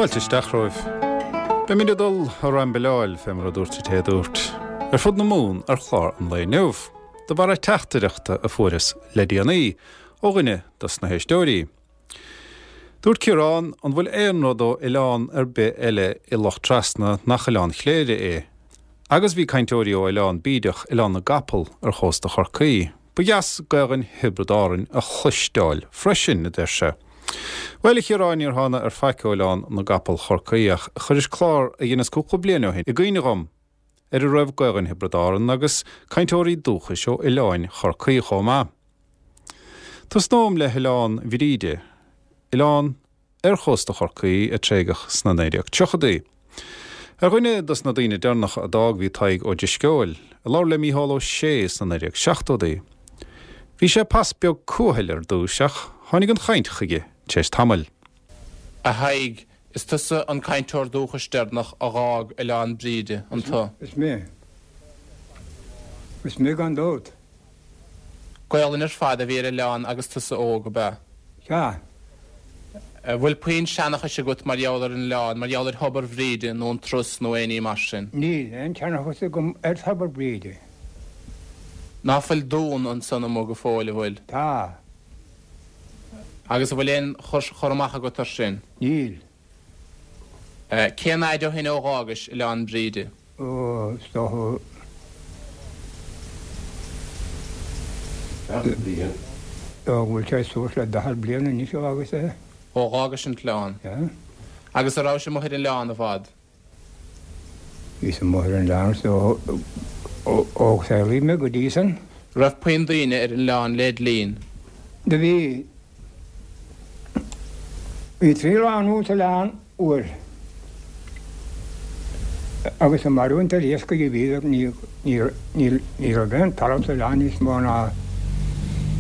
Fáilte isteach romhaibh. Beimid ag dul a raimbileáil, fé mar a dúirt an té a dúirt, ar fud na Mumhan ar chlár an lae inniu, de bharra teachtaireachta a fuaireas le déanaí ó dhuine dos na héisteoirí. Dúirt Ciarán, an bhfuil aon rud ó oileán ar bith eile i Loch Trasna nach Oileán Chléire é? Agus bhí cainteoirí ó Oileán Bídeach, Oileán na gCapall, ar chósta Chorcaí. Ba dheas Gaelainn Thiobraid Árann a chloisteáil freisin, a deir sé. Bhuel, a Chiaráin, níor thána ar faic ó Oileán na gCapall Chorcaí ach chuiris clár a dheineas cúpla bliain ó shin i gcuimhne dhom ar a raibh Gaelainn Thiobraid Árann agus cainteoirí dúchais ó oileáin Chorcaí chomh maith. Tosnóm le hOileán Bhríde, oileán ar chósta Chorcaí a tréigeadh sna 1930idí. Ar dhuine dos na daoine deireanacha a d'fhág bhí Tadhg Ó Drisceoil, a labhair le Mícheál Ó Sé sna 1970idí. Bhí sé pas beag cúthail ar dtúis ach tháinig an chaint chuige tar éis tamaill. A Thaidhg, is tusa an cainteoir dúchais deireanach a dh'fhág Oileán Bríde, an tu? Is mé. Is mé gan dabht. Gaolainn ar fad a bhí ar oileán agus tusa óg, ab ea? Sea. An bhfuil puinn seanchais agat mar gheall ar an oileán, mar gheall ar Thobar Bhríde nó an Trus nó aon ní mar sin? Níl aon tseanchas agam ar Thobar Bhríde. Ná fuil dún ansan amuigh go fóill, an bhfuil? Tá. Agus an bhfuil aon chur amach agat ar sin? Níl. Cén fhaid ó shin ó dh'fhágais Oileán Bríde? Ó, is dócha. 40 bliain. Ó, go bhfuil sé suas le 40 bliain anois ó fhágas é. Ó dh'fhágais an t-oileán. Yeah. Agus a' rabhais amuigh ar an oileán i bhfad? Bhíos amuigh ar an oileán so ó saolaíodh mé go dtí san. Raibh puinn daoine ar an oileán led linn? Do bhí. Bhí 3 lánúin sa oileán uair agus ag maireachaint ar iascaigh a bhíodar, ní raibh aon talamh sa oileán níos mó ná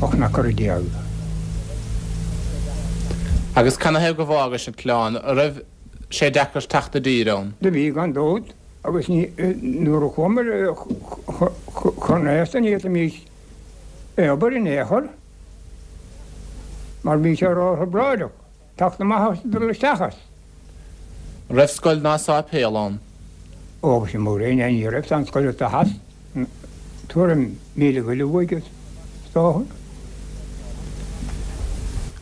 18 n-acra. Agus canathaobh go bhfágais an t-oileán? An raibh sé deacair teacht i dtír ann? Do bhí, gan dabht, agus nuair a chuamar chun aosta ní fhéadfaimís obair in aon chor. Mar bhí sé ró-thrioblóideach teacht amach as dul isteach as. An raibh scoil ná sáipéal ann? Ó agus i mo ré ní raibh san scoil atá theas tuairim míle go leith uaidh is dócha.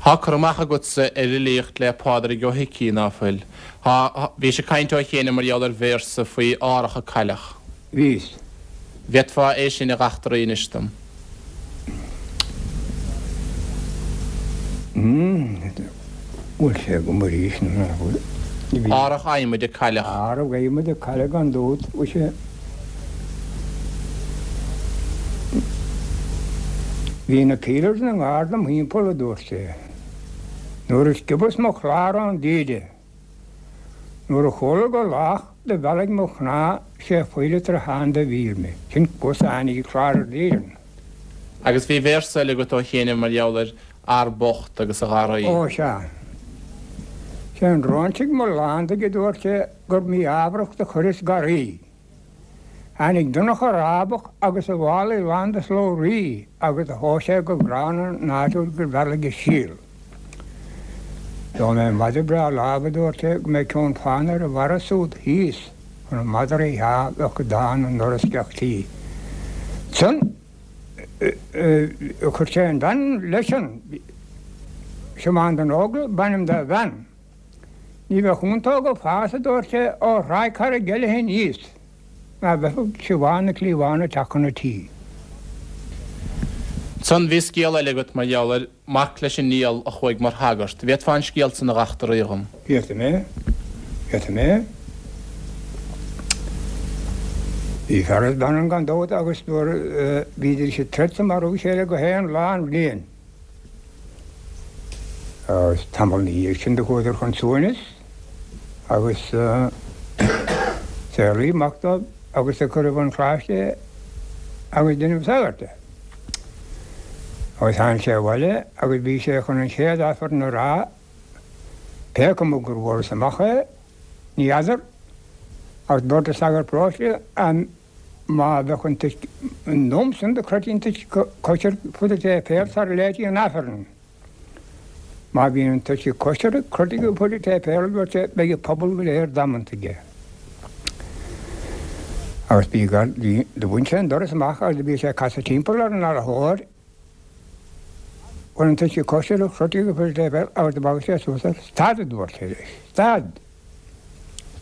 Thá cur amach agatsa ar fhilíocht le Pádraig Ó hIcí, ná fuil? Thá, bhís ag caint ó chianaibh mar gheall ar véarsa faoi árach a cailleadh. Bhíos. Bhféadfá é sin a dh'eachtraí anois dom? Bhfuil sé agam arís nó nach bhfuil? Árach adhmaid a cailleadh. Árach adhmaid a cailleadh gan dabht, bhfuil sé. Bhí na pílears ina ngar dom thimpeall, a dúirt sé. Nuair a sciobas mo chlár ón dtaoide. Nuair a chuala gur lách do bhealaigh mo chnámh sé phoill troitheáin do mhíll mé. Sin cos a tháinig ag clár ar Éirinn. Agus bhí véarsa eile agat ó chianaibh mar gheall ar fhear bocht agus a gharraí. Ó sea. Sé an dróinsigh mo lándaigh a dúirt sé gur mí-ámharach do chuireas garraí. Tháinig Donncha Rábach agus a mhálaí lán de slabhraí agus do thomhais sé go gránna an áit úd gur bhealaigh a síol. Gheobhaidh mé madra breá láimhe, a dúirt sé, go mbeidh ceann fána ar a bharra súd thíos chun an madraí a bheadh go dán i ndoras gach tí. Ansan chuir sé an bhean leis an Siobhán den Óglaigh b'ainm dá bhean. Ní bheadh iontach ag fás, a dúirt sé, ó Thráigh Charraig Eilithe aníos, ná bheadh Siobhán na cliabhán ag teacht chun an tí. Ansan bhí scéal eile agat mar gheall ar mac leis an Niall a chuaigh mar shagart. Bhféadfá an scéal san a dh'eachtraí dhom? Féadfaidh mé. Féadfaidh mé. Bhí fear is bean ann gan dabht agus nuair a bhídís ag troid 's ag marú a chéile gach aon lá an bhliain. Agus tamall 'na dhiaidh sin do chuadar chun suaimhnis agus saolaíodh mac dóibh agus do cuireadh 'un choláiste é agus deineadh sagart de. Agus tháinig sé abhaile agus bhí sé chun an chéad Aifreann a rá, pé cuma gur bhfuarthas amach é, ní fheadar, ach dúirt an sagart paróiste Má bheadh an t-uisce an am san do chroití an t-uisce coisir fud an tséipéil sara léití an Aifreann. Má bhíonn an t-uisce coisricthe, croite go fuil an tséipéil, a dúirt sé, beidh an pobal go léir damanta aige. Agus bhí gar, bhí, do bhain sé an doras amach agus do bhí sé ag casadh timpeall ar an arathóir chun an t-uisce coisricthe, croite go fuil an tséipéil agus do bhagair sé suas air. Stad, a dúirt sé leis, stad!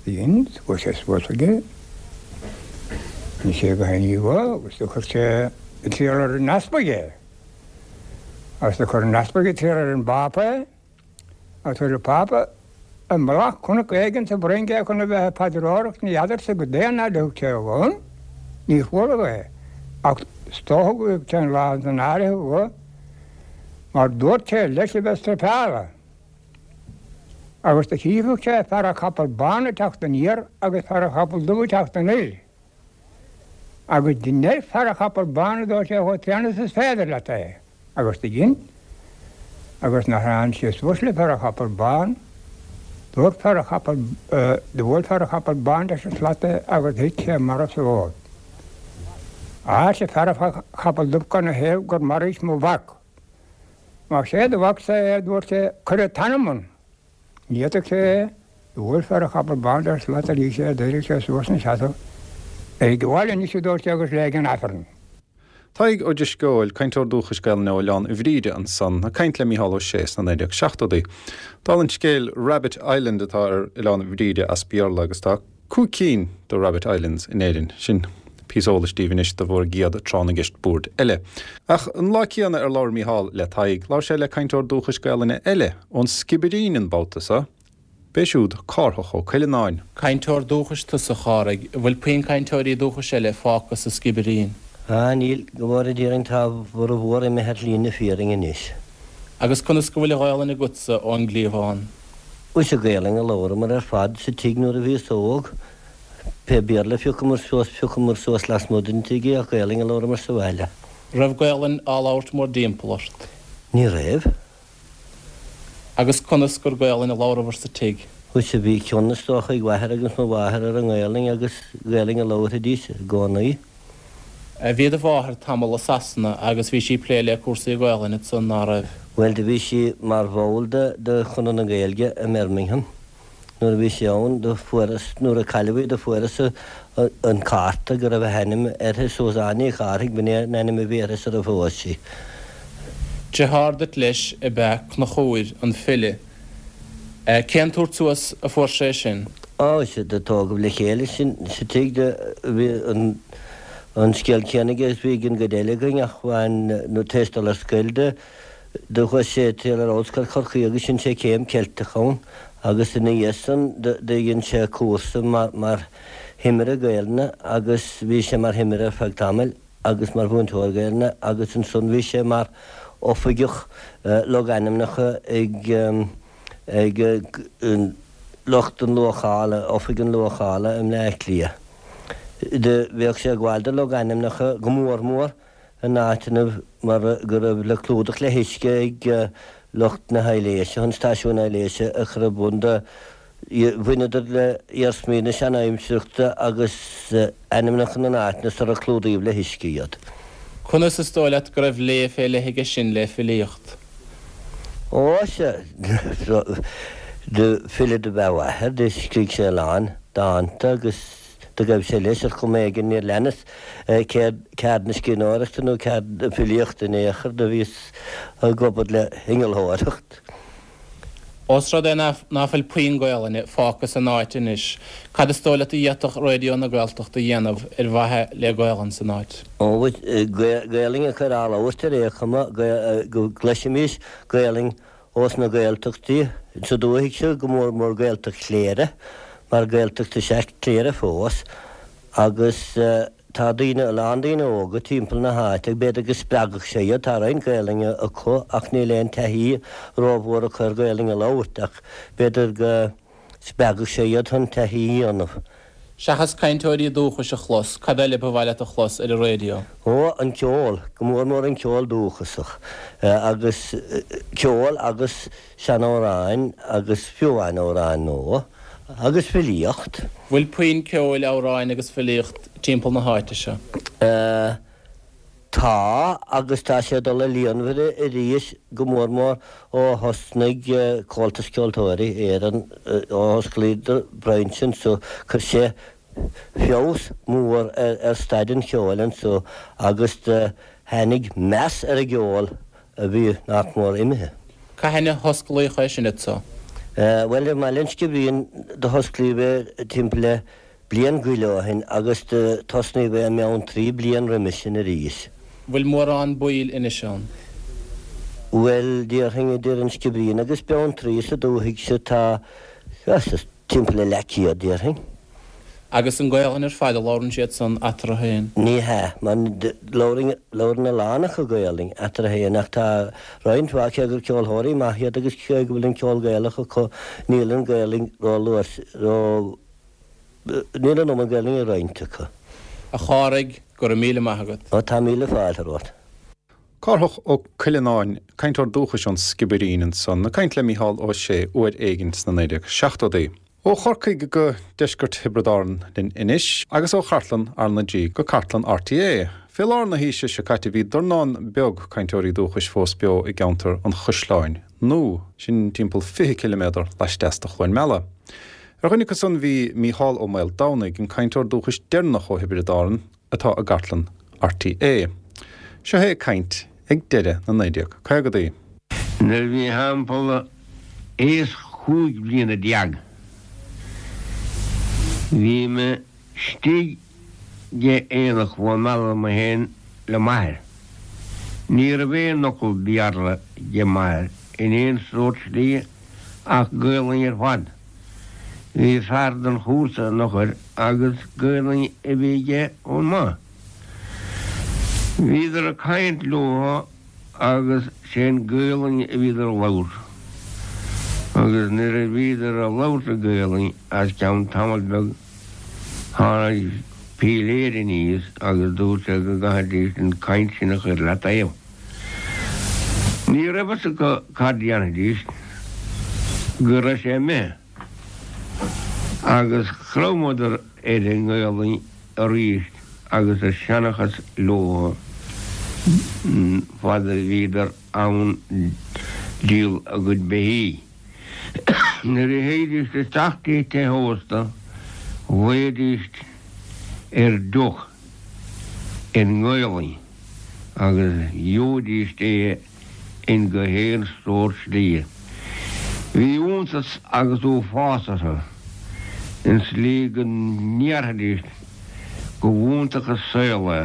Dhein, chuaigh sé suas chuige, rinne sé go haon agus do chuir sé ag triall ar an easpag é. Agus do chuir an t-easpag ag triall ar an bPápa é, agus chuir an Pápa i mullach cnoc éigin sa bhFrainc é chun a bheith ag paidreoireacht ní fheadarsa goidé an fhaid a thug sé ann, níor chuala é, ach is dócha go dtug sé an lá san áirithe dho, mar dúirt sé leis a bheith struipeála. Agus do chífeadh sé fear a chapall bán ag teacht aniar agus fear a chapall dubh ag teacht anoir. Agus dein ar fear a chapall bán a dúirt sé chomh tréan is is féidir leat é. Agus do dhein. Agus nuair tháinig sé suas le fear a chapall bán, dúirt fear a chapall, do bhuail fear a chapall bán leis an slat é agus thit sé marbh sa bhfód. Á, arsa fear a chapall dubh cad 'na thaobh gur mharaís mo mhac. Más é do mhacsa é, a dúirt sé, cuir an t-anam ann. Ní fhéadfadh sé é. Do bhuail fear a chapall bán leis an slat arís é, d'éirigh sé suas ina sheasamh. Éirigh abhaile anois, a dúirt sé, agus léigh an Aifreann. Tadhg Ó Drisceoil, cainteoir dúchais Gaelainne ó Oileán Bhríde ansan, ag caint le Mícheál Ó Sé sna 1970idí. Dála an scéil, Rabbit Island atá ar Oileán Bhríde as Béarla agus tá 5 cinn de Rabbit Islands in Éirinn. Sin píosa eolais daoibh anois do bhur gcéad tráth na gceist boird eile. Ach an lá céanna ar labhair Mícheál le Tadhg, labhair sé le cainteoir dúchais Gaelainne eile, ón Sciobairín an babhta seo. B'é siúd Cárthach Ó Cuileanáin. Cainteoir dúchais tusa, a Chárthaigh. An bhfuil puinn cainteoirí dúchais eile fágtha sa Sciobairín? Ah, níl, go bhfóire Dia orainn tá a bhformhór imithe ar shlí na fírinne anois. Agus conas go bhfuil an Ghaelainn agatsa ón gcliabhán? Is í Gaelainn a labhramar ar fad sa tigh nuair a bhíos óg. Pé Béarla a phiocamar suas, phiocamar suas lasmuigh den tigh é ach Gaelainn a labhramar sa bhaile. Raibh Gaelainn á labhairt mórdtimpeall ort? Ní raibh. Agus conas gur Gaelainn a labhrabhair sa tigh? Sea, bhí cion is dócha ag m'athair agus mo mháthair ar an nGaelainn agus Gaelainn a labharfaidís i gcónaí. Bhí do mháthair tamall i Sasana agus bhí sí ag plé le cúrsaí Gaelainne ansan, ná raibh? Bhuel, do bhí sí mar bhall de de Chonradh na Gaeilge i mBirmingham. Nuair a bhí sí ann, do fuarthas, nuair a cailleadh í, do fuarthas an cárta go raibh a hainm uirthi, Suzanne Ní Chárthaigh, b'in é an ainm a bhí uirthi sar a phós sí. Deartháir duit leis ab ea Conchúr, an file. Cén tabhairt suas a fuair sé sin? Á, sea, do tógadh le chéile sinn sa tigh, do bhí an an scéal céanna aige is bhí ag an gcuid eile againn ach bhain, nó tar éis dul ar scoil do, do chuaigh sé ag triall ar Ollscoil Chorcaí agus dhein sé céim Ceilteach ann agus ina dhiaidh san do dhein sé cúrsa mar, mar thimire Gaelainne agus bhí sé mar thimire ar feadh tamaill. agus mar mhúinteoir Gaelainne agus ansan bhí sé mar oifigeach logainmneacha ag ag lucht an luachála, Oifig an Luachála i mBleá Cliath. Do bhíodh sé ag gabháil do logainmneacha go mór mór in áiteanna mar go raibh le clúdach le huisce ag lucht na haibhléise chun stáisiún aibhléise a chur ar bun do Bhaineadar le hiarsmaí na seanaimsireachta agus ainmneacha na n-áiteanna sar a clúdaíodh le huisce iad. Conas is dóigh leat go raibh léamh fé leith aige sin le filíocht? Ó, sea, do file do b'ea a mháthair, do scrígh sé a lán dánta agus do ghaibh sé leis ar chuma éigin níor leanas ceard na scríbhneoireachta nó ceard na filíochta in aon chor, do bhíos ag obair le hinnealtóireacht. Ós rud é ná fuil puinn Gaolainne fágtha san áit anois, cad is dóigh leat a d'fhéadfadh Raidió na Gaeltachta a dhéanamh ar mhaithe le Gaolainn san áit? Ó, Gaolainn a chur á labhairt ar aon chuma, go gcloisfimis Gaolainn ós na Gaeltachtaí sa dúthaigh seo, go mór mór Gaeltacht Chléire, mar Gaeltacht is ea Cléire fós, agus. Tá daoine, a lán daoine óga timpeall na háite, b'fhéidir go spreagfadh sé iad, tá roinnt Gaelainne acu ach níl aon taithí rómhór acu ar Ghaelainn a labhairt ach b'fhéidir go spreagfadh sé iad chun taithí a dhéanamh. Seachas cainteoirí dúchais a chlos, cad eile ba mhaith leat a chlos ar an raidió? Ó, an ceol, go mór mór an ceol dúchasach agus ceol agus seanamhráin agus fiú amháin amhráin nua agus filíocht. Bhfuil puinn ceoil, amhráin agus filíocht timpeall na háite seo? Tá, agus tá sé ag dul i líonmhaire arís, go mór mór ó thosnaigh Comhaltas Ceoltóirí Éireann, ó osclaíodar brainse anso, chuir sé feabhas mór ar staid an cheoil anso agus do tháinig meas ar an gceol a bhí nach mór imithe. Cathain a hosclaíodh é sin anso? Bhuel, i mBaile an Sciobairín do hosclaíodh é timpeall le bliain go leith ó shin agus do tosnaíodh é i mBeanntraí bliain roimis sin arís. Bhfuil mórán baill anois ann? Bhuel, déarfainn idir an Sciobairín agus Beanntraí sa dúthaigh seo tá timpeall le leathchéad, déarfainn. Agus an Gaolainn ar fad a labhrann siad san eatarthu féin? Ní hea, mar labhrann a lán acu Gaolainn eatarthu féin ach tá roinnt mhaith, cé gur ceolthóirí maith iad agus cé go bhfuil an ceol Gaelach acu, níl an Ghaolainn ró-luas, ró, níl an iomad Gaolainn ag roinnt acu. A Chárthaigh, go raibh míle maith agat. Ó, tá míle fáilte romhat. Cárthach Ó Cuileanáin, cainteoir dúchais ón Sciobairín ansan, ag caint le Mícheál Ó Sé uair éigin sna 1970idí. Ó Chorcaigh go deisceart Thiobraid Árann linn anois, agus ó chartlann RnaG go cartlann RTÉ. Fé lár na haoise seo caite bhí dornán beag cainteoirí dúchais fós beo i gceantar an Chaisleáin Nua, sin timpeall 20 ciliméadar laisteas de Chluain Meala. Ar dhuine acu san bhí Mícheál Ó Maoldomhnaigh, an cainteoir dúchais deireanach ó Thiobraid Árann atá i gcartlann RTÉ. Seo é ag caint ag deireadh na 1950idí. Nuair a bhí thimpeall aois chúig bliana déag bhí mé istigh ag aonach Chluain Meala mé féin le m'athair. Ní raibh aon fhocal Béarla ag m'athair in aon sórt slí ach Gaolainn ar fad. Bhí fear den chúrsa an eochair agus Gaolainn a bhí aige chomh maith. Bhíodar ag caint leo agus sé'n Gaolainn a bhíodar a labhairt. Agus nuair a bhíodar a labhairt i Gaolainn as ceann tamall beag tháinig píléir aníos agus dúirt sé go gcaithfidís an caint sin a chur le taobh. Ní raibh fhios acu cad dhéanfaidís go raibh sé imithe agus chromadar ar an nGaolainn arís agus a seanchas leo fad a bhíodar ann díol a gcuid beithígh. Nuair a théidís isteach dtí teach ósta ghlaoidís ar deoch i nGaolainn agus gheobhaidís é in go haon sórt slí. Bhí iontas agus uafás orthu, in slí go ndéarfaidís go bh'iontach an saol é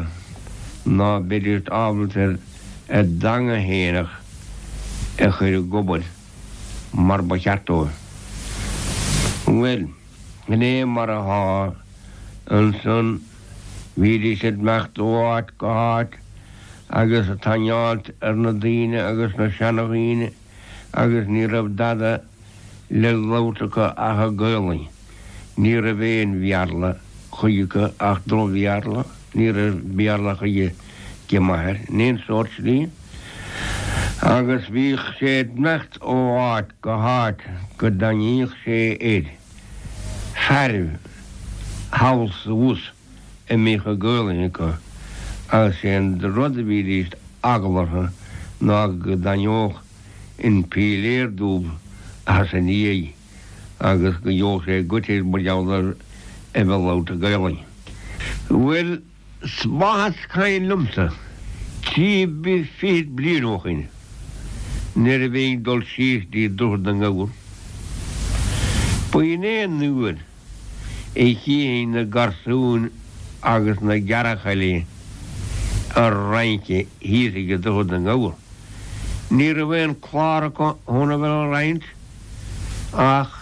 ná beidís ábalta ar a dteanga fhéineach a chur ag obair mar ba cheart dóibh. Bhuel, sin é mar athá ansan, bhídís ag imeacht ó áit go háit agus ag tainneáilt ar na daoine agus na seanadhaoine agus ní raibh dada le labhairt acu ach i Gaolainn. Ní raibh aon Bhéarla chuige acu ach droch-Bhéarla, ní raibh Béarla chuige ag m'athair in aon sórt slí. Agus bhíodh sé ag imeacht ó áit go háit go dtaitníodh sé ar fearaibh thall 's abhus. a mbíodh an Ghaolainn acu agus sé an rud a bhídís eagla orthu ná go dtaitneodh an píléar dubh as a ndiaidh agus go gheobhadh sé goit air mar gheall ar a bheith ag labhairt Gaolainn. Bhuel, 's maith is cuimhin liomsa, trí fichid bliain ó shoin, nuair a bhínn ag dul síos dtí Droichead na nGabhar, b'in é an uair a chífinn na garsúin agus na gearrchailí a' rince thíos ag Droichead na nGabhar. Ní raibh aon clár acu chun a bheith a' rince ach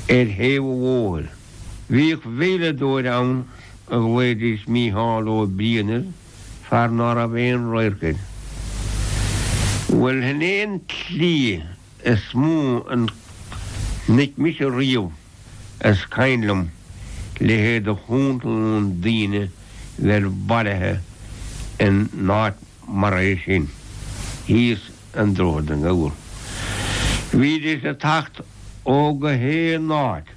ar thaobh an bhóthair. Bhíodh veidhleadóir ann a ghlaoidís Mícheál Ó Briain air, fear ná raibh aon radharc air. Bhuel, shin é an tslí is mó a chonaic mise riamh is cuimhin liom leithéid de chontúin daoine bheith bailithe in áit mar é sin, thíos i nDroichead na nGabhar. Bhídís ag teacht ó go haon áit,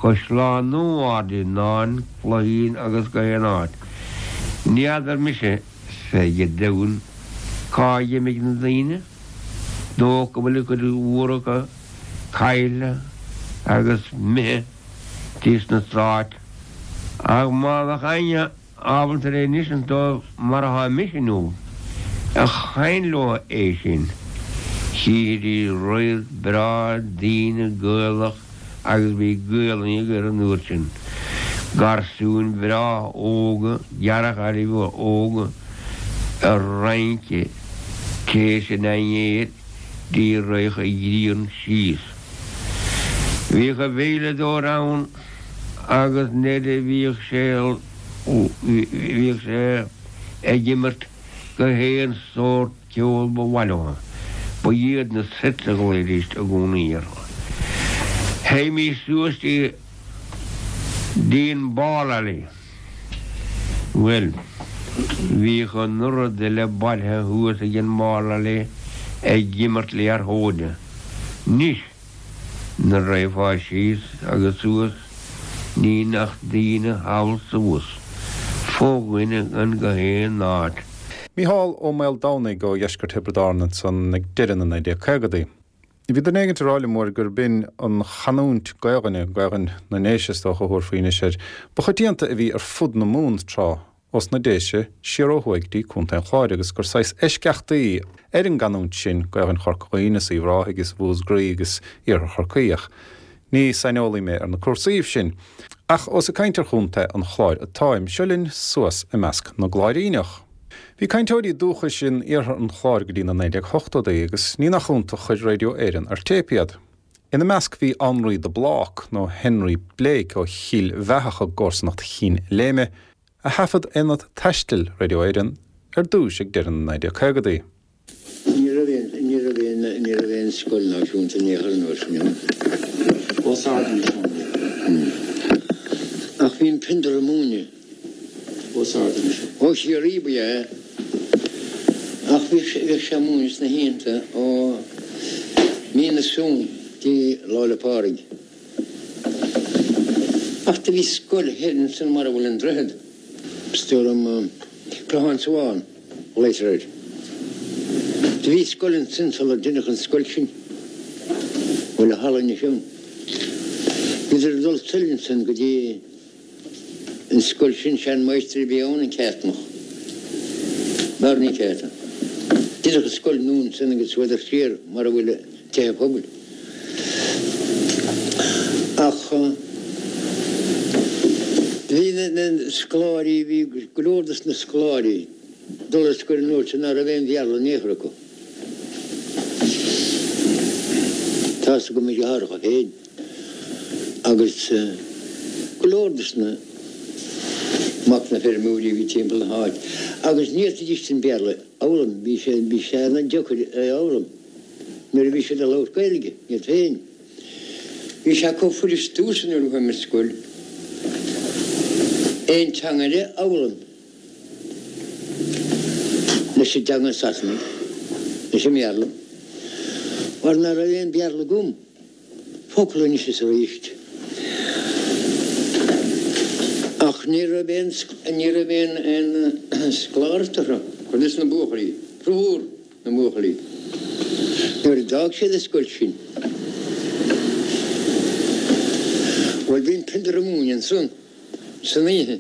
Caisleán Nua, Ard Fhíonáin, Cloichín agus go haon áit. Ní fheadar mise. Fé Dhia domhain, cá dh'imigh na daoine? Dócha go bhfuil an chuid mhór acu caillte agus imithe dtí sna Stáit. Ach má bheadh éinne ábalta le n-insint dóibh mar atá mise inniu a chaint leo é sin, chífidís radharc breá daoine Gaelach agus bhí Gaelainn acu an uair sin, garsúin bhreá óga, deartháirí óga ag rince théis an dinnéir dtí raghadh an ghrian síos. Bhíodh an veidhleadóir ann agus nuair a bhíodh sé bhíodh sé ag imirt go haon sórt ceol ba mhaith leo. Ba iad na sets a ghlaoidís i gcónaí orthu. Théimís suas dtí dtí an ball alley. Bhuel, bhíodh an oiread uile bailithe thuas ag an ball alley ag imirt liathróide. Anois, Nuair a raghfá síos agus suas ní nach daoine thall 's abhus, fo-dhuine gan go haon áit. Mícheál Ó Maoldomhnaigh ó dheisceart Thiobraid Árann ansan ag deireadh na 1950idí. Bhí duine éigint ag rá liom uair gurb in an chanúint Gaelainne, Gaelainn na nDéise is dócha a thabharfaí anois air, ba choitianta a bhí ar fud na Mumhan tráth. Ós na Déise siar ó thuaidh dtí Contae an Chláir agus gur saghas eisceachtaí ar an gcanúint sin Gaelainn Chorca Dhuibhne is Uíbh Ráthaigh is Mhúscraí agus Iarthar Chorcaí ach ní saineolaí mé ar na cúrsaíbh sin. Ach ós ag caint ar Chontae an Chláir atáim, seo linn suas i measc na gCláiríneach. Bhí cainteoirí dúchais in iarthar an Chláir go dtí na 1980idí agus ní nach iontach chuir Radio Éireann ar téip iad. Ina measc bhí Annraoi de Blác, nó Henry Blake ó Chill Bheathach i gcomharsanacht Chinn Léime, a thaifead Aonad Taistil Radio Éireann ar dtúis ag deireadh na 1950idí. Ní raibh aon, ní raibh aon, ní raibh aon scoil náisiúnta in aon chor an uair sin ann. Os ard anois ann. Ach bhí an Piondar ag múineadh. Os ard anois. Ó Chiarraí ba ea é. Ach bhíodh sé, bhíodh sé ag múineadh sna hoícheanta ó mí na Samhna dtí Lá 'le Pádraig. Ach do bhí scoil thoir ansan mar a bhfuil an droichead, is dóigh liom, Clochán Sabhán a ghlaotar air. Do bhí scoil ansan sular deineadh an scoil sin, a bhfuil an halla anois ann. Bhíodar ag dul soir ansan go dtí. An scoil sin, sean-mháistir a bhí ann, an Ceartnach. Barney Carton. Deineadh an scoil nua ansan agus chuadar siar mar a bhfuil tithe pobail. Ach bhí na scoláirí, bhí go leor dos na scoláirí ag dul ar scoil an uair sin ná raibh aon Bhéarla in aon chor acu. Tá's agam mo dheartháireacha féin. agus go leor dos na mac na feirmeoirí a bhí timpeall na háit agus ní fhéadfaidís an Béarla a fhoghlaim, bhí sé bhí sé ana deocair é a fhoghlaim nuair a bhí siad ag labhairt Gaeilge iad féin. Bhí sé chomh fuirist domhsa nuair a chuaigh mé ar scoil aon teanga eile a fhoghlaim leis an dteanga Sasanaigh, leis an mBéarla, mar ná raibh aon Bhéarla agam. Focal anois is arís. Ach ní raibh aon, ní raibh aon, aon scoláireacht orthu, cuid des na buachaillí, formhór na mbuachaillí, nuair a d'fhág siad an scoil sin. Bhuel, bhí an Piondar ag múineadh ansan. san oíche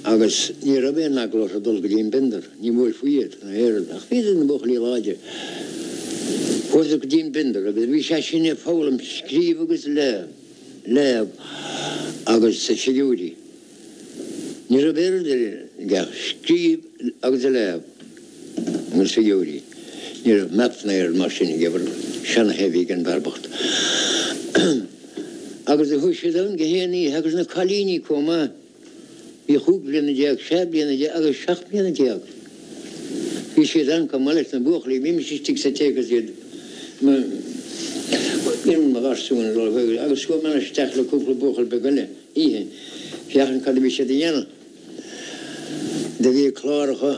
agus ní raibh aon eagla orthu dul go dtí an bpiondar, ní bhuailfí iad ná aon rud, ach bhíodar ina mbuachaillí láidre. Chuadar go dtí an bpiondar agus bhí sé sin ag foghlaim scríobh agus léamh agus figiúirí. Ní raibh aon rud eile aige ach scríobh agus léamh agus figiúirí. Ní raibh maths ná aon rud mar sin aige, seana-thigh a bhí ag an bhfear bocht. Agus do chuaigh siad ann gach aon oíche agus na cailíní comh maith. Bhí chúig bliana déag, sé bliana déag agus seacht mbliana déag. Bhí siad ann comh maith leis na buachaillí. Bhímis istigh sa tigh agus iad mo mo gharsúin ag dul chuige agus chuaigh mé isteach le cúpla buachaill beag eile oíche féachaint cad a bhí siad a dhéanamh. Do bhí cláracha.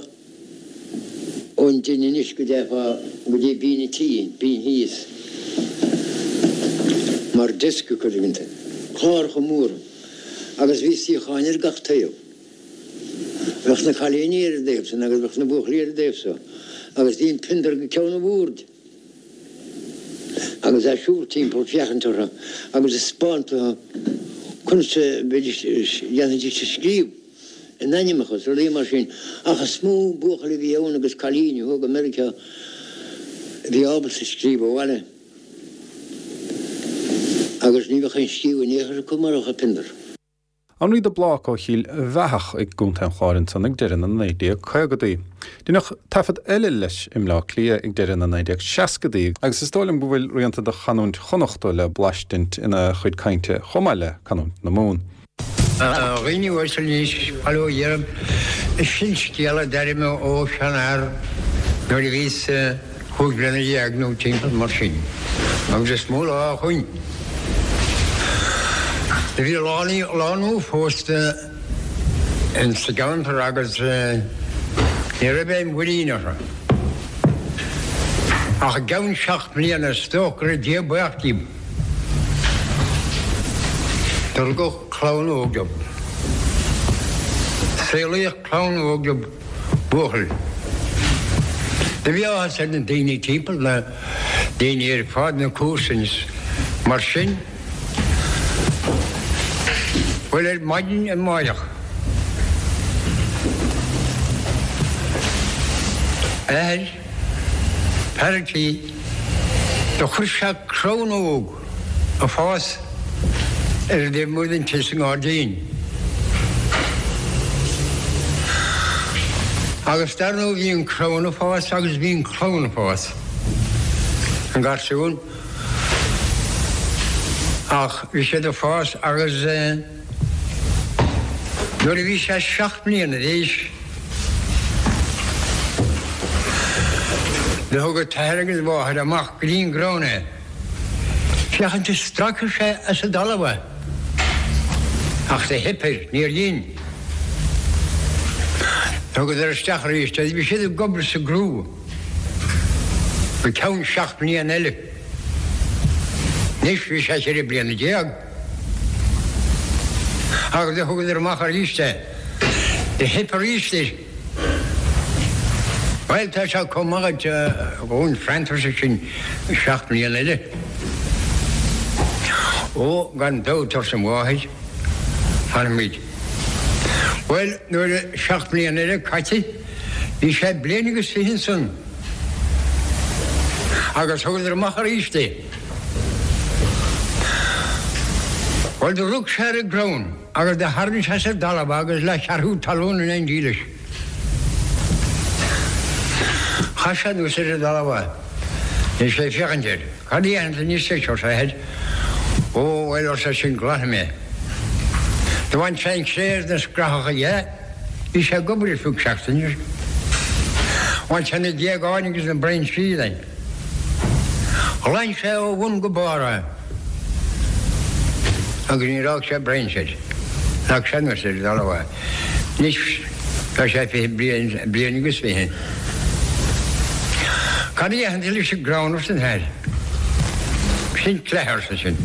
Ón dtine anois go dteifeá go dtí binn an tí, binn thíos, mar desk acu tuigeann tú. Cláracha móra agus bhí suíocháin ar gach taobh. Bheadh na cailíní ar an dtaobh san agus bheadh na buachaillí ar an dtaobh so agus bhí an piondar go ceann an bhoird agus é ag siúl timpeall féachaint orthu agus ag 'speáint dóibh conas a bheidís, dhéanfaidís a scríobh a n-ainmneacha is rudaí mar sin ach is mó buachaill a bhí ann agus cailíní a chuaigh go Meiriceá a bhí ábalta scríobh abhaile agus ní bheadh aon scríobh in aon chor acu mar bheadh an piondar. Anraí de Blác ó Chill Bheathach i gContae an Chláir ansan ag deireadh na 1950idí. Deineadh taifead eile leis i mBleá Cliath ag deireadh na 1960idí agus is dóigh liom go bhfuil rianta de chanúint Chonnachta le blaistint ina chuid cainte chomh maith le canúint na Mumhan. A dhaoine uaisle anois, bail ó Dhia oraibh, sin scéal a d'airigh mé ó sheanfhear nuair a bhíos 15 bliana nó timpeall mar sin, agus is mó lá ó shoin. Do bhí lánúin phósta in sa gceantar agus ní raibh aon mhuirín orthu. Ach i gceann seacht mbliana is dócha go raibh Dia buíoch díobh. Do rugadh clann óg dóibh. Saolaíodh clann óg dóibh, buachaill. Do bhí áthas ar na daoine timpeall, na daoine ar fad, na comharsain is mar sin. Bhuel, ar maidin amáireach, athair, fear an tí, do chuir sé crann óg ag fás ar an dtaobh amuigh den tigh sa ngairdín. Agus dar ndóigh bhí an crann ag fás agus bhí an clann ag fás, an garsún. Ach bhí siad ag fás agus nuair a bhí sé seacht mbliana d'aois do thug a t-athair agus a mháthair amach go dtí an gcrann é féachaint an stracfadh sé as an dtalamh é. Ach do theip air, níor dhein. Thugadar isteach arís é. Bhí siad ag obair sa gcrú. Go ceann seacht mbliana eile. Anois bhí sé cheithre bliana déag. Agus do thugadar amach arís é. Do theip arís air. Bhuel, tá sé chomh maith duit dhúinn freantar sin seacht mbliana eile. Ó, gan dabht, arsa an mháthair, fanfaimid. Bhuel, nuair a seacht mbliana eile caite, Bhí sé bliain agus 20 ansan agus thugadar amach arís é. Bhuel do rug sé ar an gcrann agus do tharraing sé as an dtalamh é agus leathcheathrú talún in éindí leis. Chaith sé anuas ar an dtalamh é. Bhí sé ag féachaint air. Cad a dhéanfaidh tú anois leis, arsa a athair. Ó, bhuel, arsa eisean, glanfaidh mé. Do bhain sé an chré agus na scrathacha dhe. Bhí sé ag obair ar feadh seachtaine. Bhain sé na géagáin agus na brainsí de. Ghlan sé ó bhun go barr é agus níor fhág sé brainse air. Leag sé anuas ar an dtalamh é. Anois tá sé 20 bliain, bliain agus 20. Cad a dhéanfaidh tú leis an gcrann arsa an t-athair. Sin cleith arsa sin.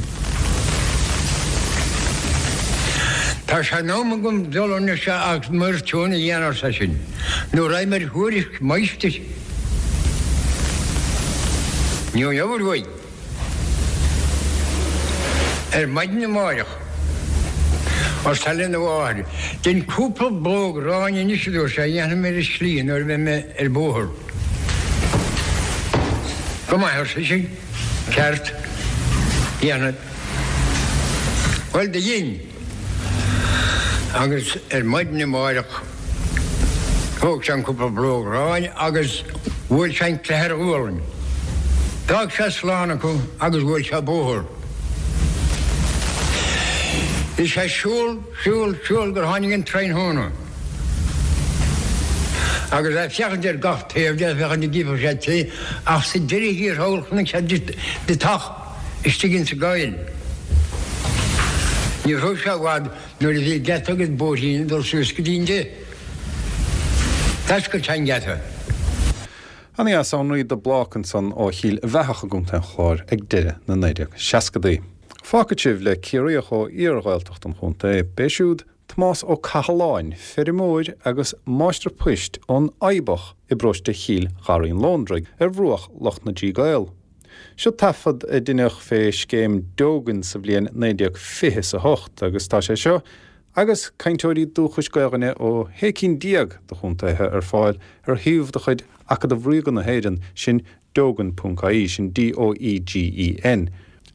Tá sé in am agam dul anois agus m'fhoirtiún a dhéanamh arsa sin, nó raghaidh mé ar thuairisc máistir. Ní gheobhair uaidh. Ar maidin amáireach, arsa lena mháthair, dein cúpla blóg aráin anois a dúirt sé, a dhéanfaidh mé ar an slí nuair a bheidh mé ar bóthar. Go maith, arsa sise, ceart, déanfad. Bhuel, do dhein. Agus ar maidin amáireach thóg sé an cúpla blóg aráin agus bhuail sé an cleith ar a ghualainn. D'fhág sé slán acu agus bhuail sé bóthar. Bhí sé ag siúl, siúl, siúl gur tháinig an tráthnóna. Agus é ag féachaint ar gach taobh de, féachaint an gcífeadh sé tigh, ach sa deireadh thiar thall chonaic sé deatach istigh insa gcoill. Ní raibh sé i bhfad nuair a bhí geata agus bóithrín ag dul suas go dtí an dtigh. D'oscail sé an geata. Ana-dheas Anraí de Blác ansan ó Chill Bheathach i gContae an Chláir ag deireadh na 1960idí. Fágfaidh sibh le Ciarraíoch ó iar-Ghaeltacht an chontae. B'é siúd. Tomás Ó Cathaláin, feirmeoir agus máistir poist ón Fhaobach i bparóiste Chill Gharraí an Lóndraigh, ar bhruach Loch na dTrí gCaol. Seo taifead a deineadh fé scéim Doegen sa bhliain 1928 agus tá sé seo agus cainteoirí dúchais Gaelainne ó shé cinn déag de chontaetha ar fáil ar shuíomh de chuid Acadamh Ríoga na hÉireann, sin Doegen.ie, sin D-O-E-G-E-N.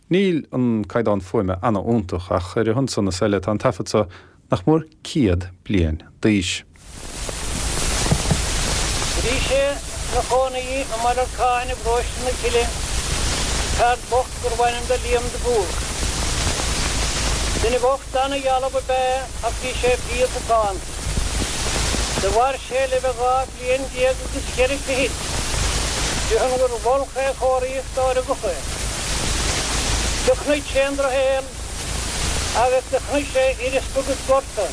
Níl an caighdeán fuaime ana-iontach, ach ar a shon san is eile tá an taifead so nach mór 100 bliain d'aois. Bhí sé 'na chónaí i mBaile Lorcáin i bparóiste na Cille, fear bocht gurbh ainm do Liam de Búrc. Duine bocht ana-dhealbh ab ea é ach bhí sé fial macánta. Do mhair sé le bheith 12 bliain agus cheithre fichid, de shon gur mhol é chomharthaíocht dá rugadh é. Do chonaic sé an drochshaol agus do chonaic sé uireaspa agus gorta.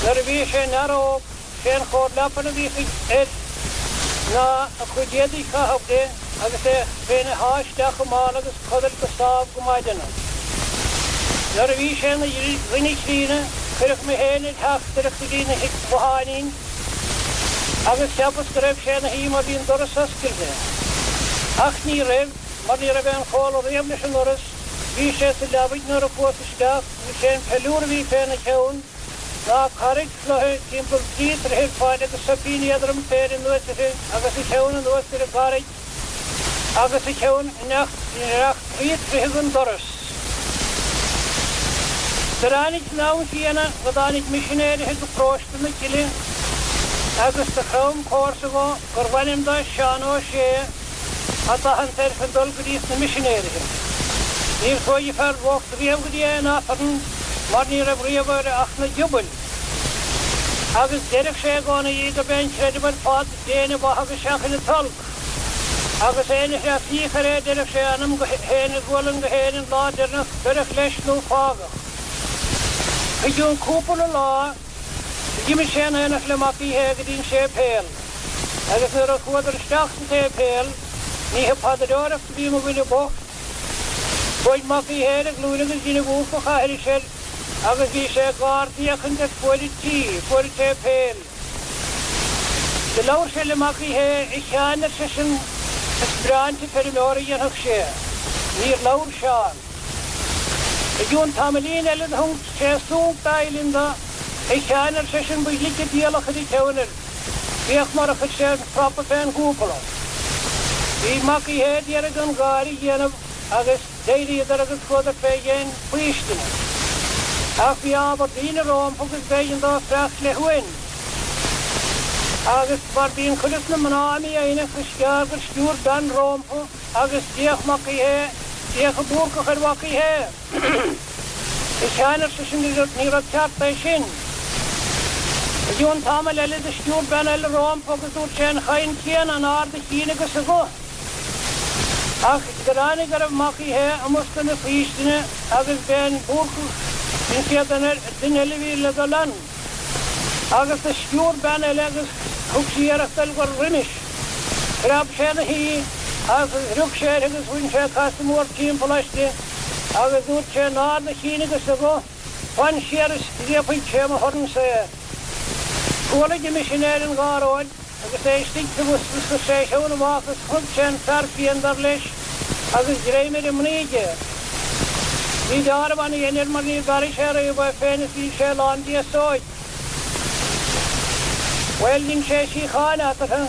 Nuair a bhí sé ina fhear óg, sé an chóir leapan a bhíodh air ná a chuid éadaigh chaitheamh de agus é féin a shá isteach i mála agus codailt go sámh go maideanach. Nuair a bhí sé ina dhuine críonna, cuireadh mé féin ar theachtaireacht go dtí an bhotháinín agus cheapas go raibh sé ina shuí mar bhí an doras oscailte. Ach ní raibh, mar ní raibh aon chomhla riamh leis an ndoras, bhí sé sa leabaidh nuair a chuas isteach agus sé an peiliúr a bhí féna cheann ná carraig chloiche timpeall trí troithe ar faid agus soipín éadrom féir anuas uirthi agus a cheann anuas ar an gcarraig agus a cheann i ndreach trí troithe den doras. Do ráinig san am chéanna go dtáinig misinéirithe go paróiste na Cille agus do chrom comharsa dho gurbh ainm do Seán Ó Sé a d'athant air chun dul go dtí sna misinéirithe. Níor chuaigh an fear bocht riamh go dtí aon Aifreann mar ní raibh riamh air ach na giobail agus deireadh sé i gcónaí gurb é an creideamh ar fad Déan an mhaith agus seachain an t-olc. Agus éinne a threaslaíodh air é deireadh sé a anam go féin a ghualainn go féin an lá deireanach beireadh leis nó fágadh. I gcionn cúpla lá d'imigh sé in aonacht le Mac Uí Shé go dtí an séipéal agus nuair a chuadar isteach sa tséipéal ní ag paidreoireacht a bhí mo dhuine bocht. Chuaigh Mac Uí Shé ar a ghlúine agus dhein an Búrcach aithris air agus bhí sé ag ardfhéachaint ar fuaid an tí, fuaid an tséipéil. Do labhair sé le Mac Uí Shé, A Sheáin, ar seisean, is breá an feirmeoir a dhéanfadh sé. Níor labhair Seán. I gcionn tamaillín eile do thug sé súnc dá uillinn do, A Sheáin, ar seisean, ba ghlice diabhal a chuir a cheann air. Féach mar a chuir sé an prapa fén gcúpula. Bhí Mac Uí Shé d'iarraidh gan gáire a dhéanamh agus. D'éiríodar agus chuadar fé dhéin faoistine. Ach bhí ábhar daoine rómpa agus b'éigean dóibh freacht le huain. Agus mar bíonn cuid de na mná mífhoighneach is gearr gur sciúr bean rómpa agus d'fhéach Mac Uí Shé, d'fhéach an Búrcach ar Mhac Uí Shé. A Sheáin, ar seisean, ní rud ceart é sin. I gcionn tamaill eile do sciúr bean eile rómpa agus dúirt sé an chaint chéanna in ard a chinn agus a ghuth. Ach do ráinig go raibh Mac Uí Shé i mbosca na faoistine agus b'é an Búrcach an chéad duine eile a bhí le dul ann. Agus do sciúr bean eile agus thug sí iarracht dul roimis. Phreab sé ina shuí agus rug sé uirthi agus bhain sé casadh mór timpeall aisti agus dúirt sé in ard a chinn agus a ghuth, Fan siar is scríobfaidh sé mo thorn-sa é. Chualaidh an misinéir an gháróid. Agus é istigh sa bhus chuir sé a cheann amach agus chonaic sé an fear fiain dar leis agus greim ar an mnaoi aige. Bhí deáramh ana-dhein air mar níor mharaigh sé riamh é féin is bhí sé lán d'fhéasóig. Bhuel, dhein sé síocháin eatarthu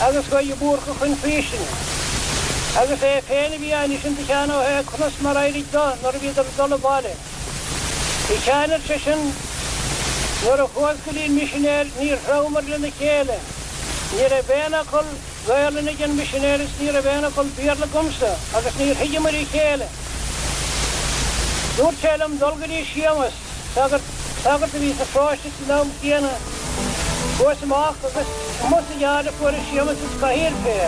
agus chuaigh an Búrcach chun faoistine. Agus é féin a bhí á insint do Sheán Ó Sé conas mar éirigh do nuair a bhíodar ag dul abhaile. A Sheáin, ar seisean, nuair a chuas go dtí an misinéir níor threabhamar lena chéile. Ní raibh aon fhocal Gaolainne ag an misinéir is ní raibh aon fhocal Béarla agamsa agus níor thuigeamair a chéile. Dúirt sé liom dul go dtí Séamas, sagart, sagart a bhí sa pharóiste san am chéanna. Chuas amach agus amuigh sa yard a fuaireas Séamas is cathaoir fé.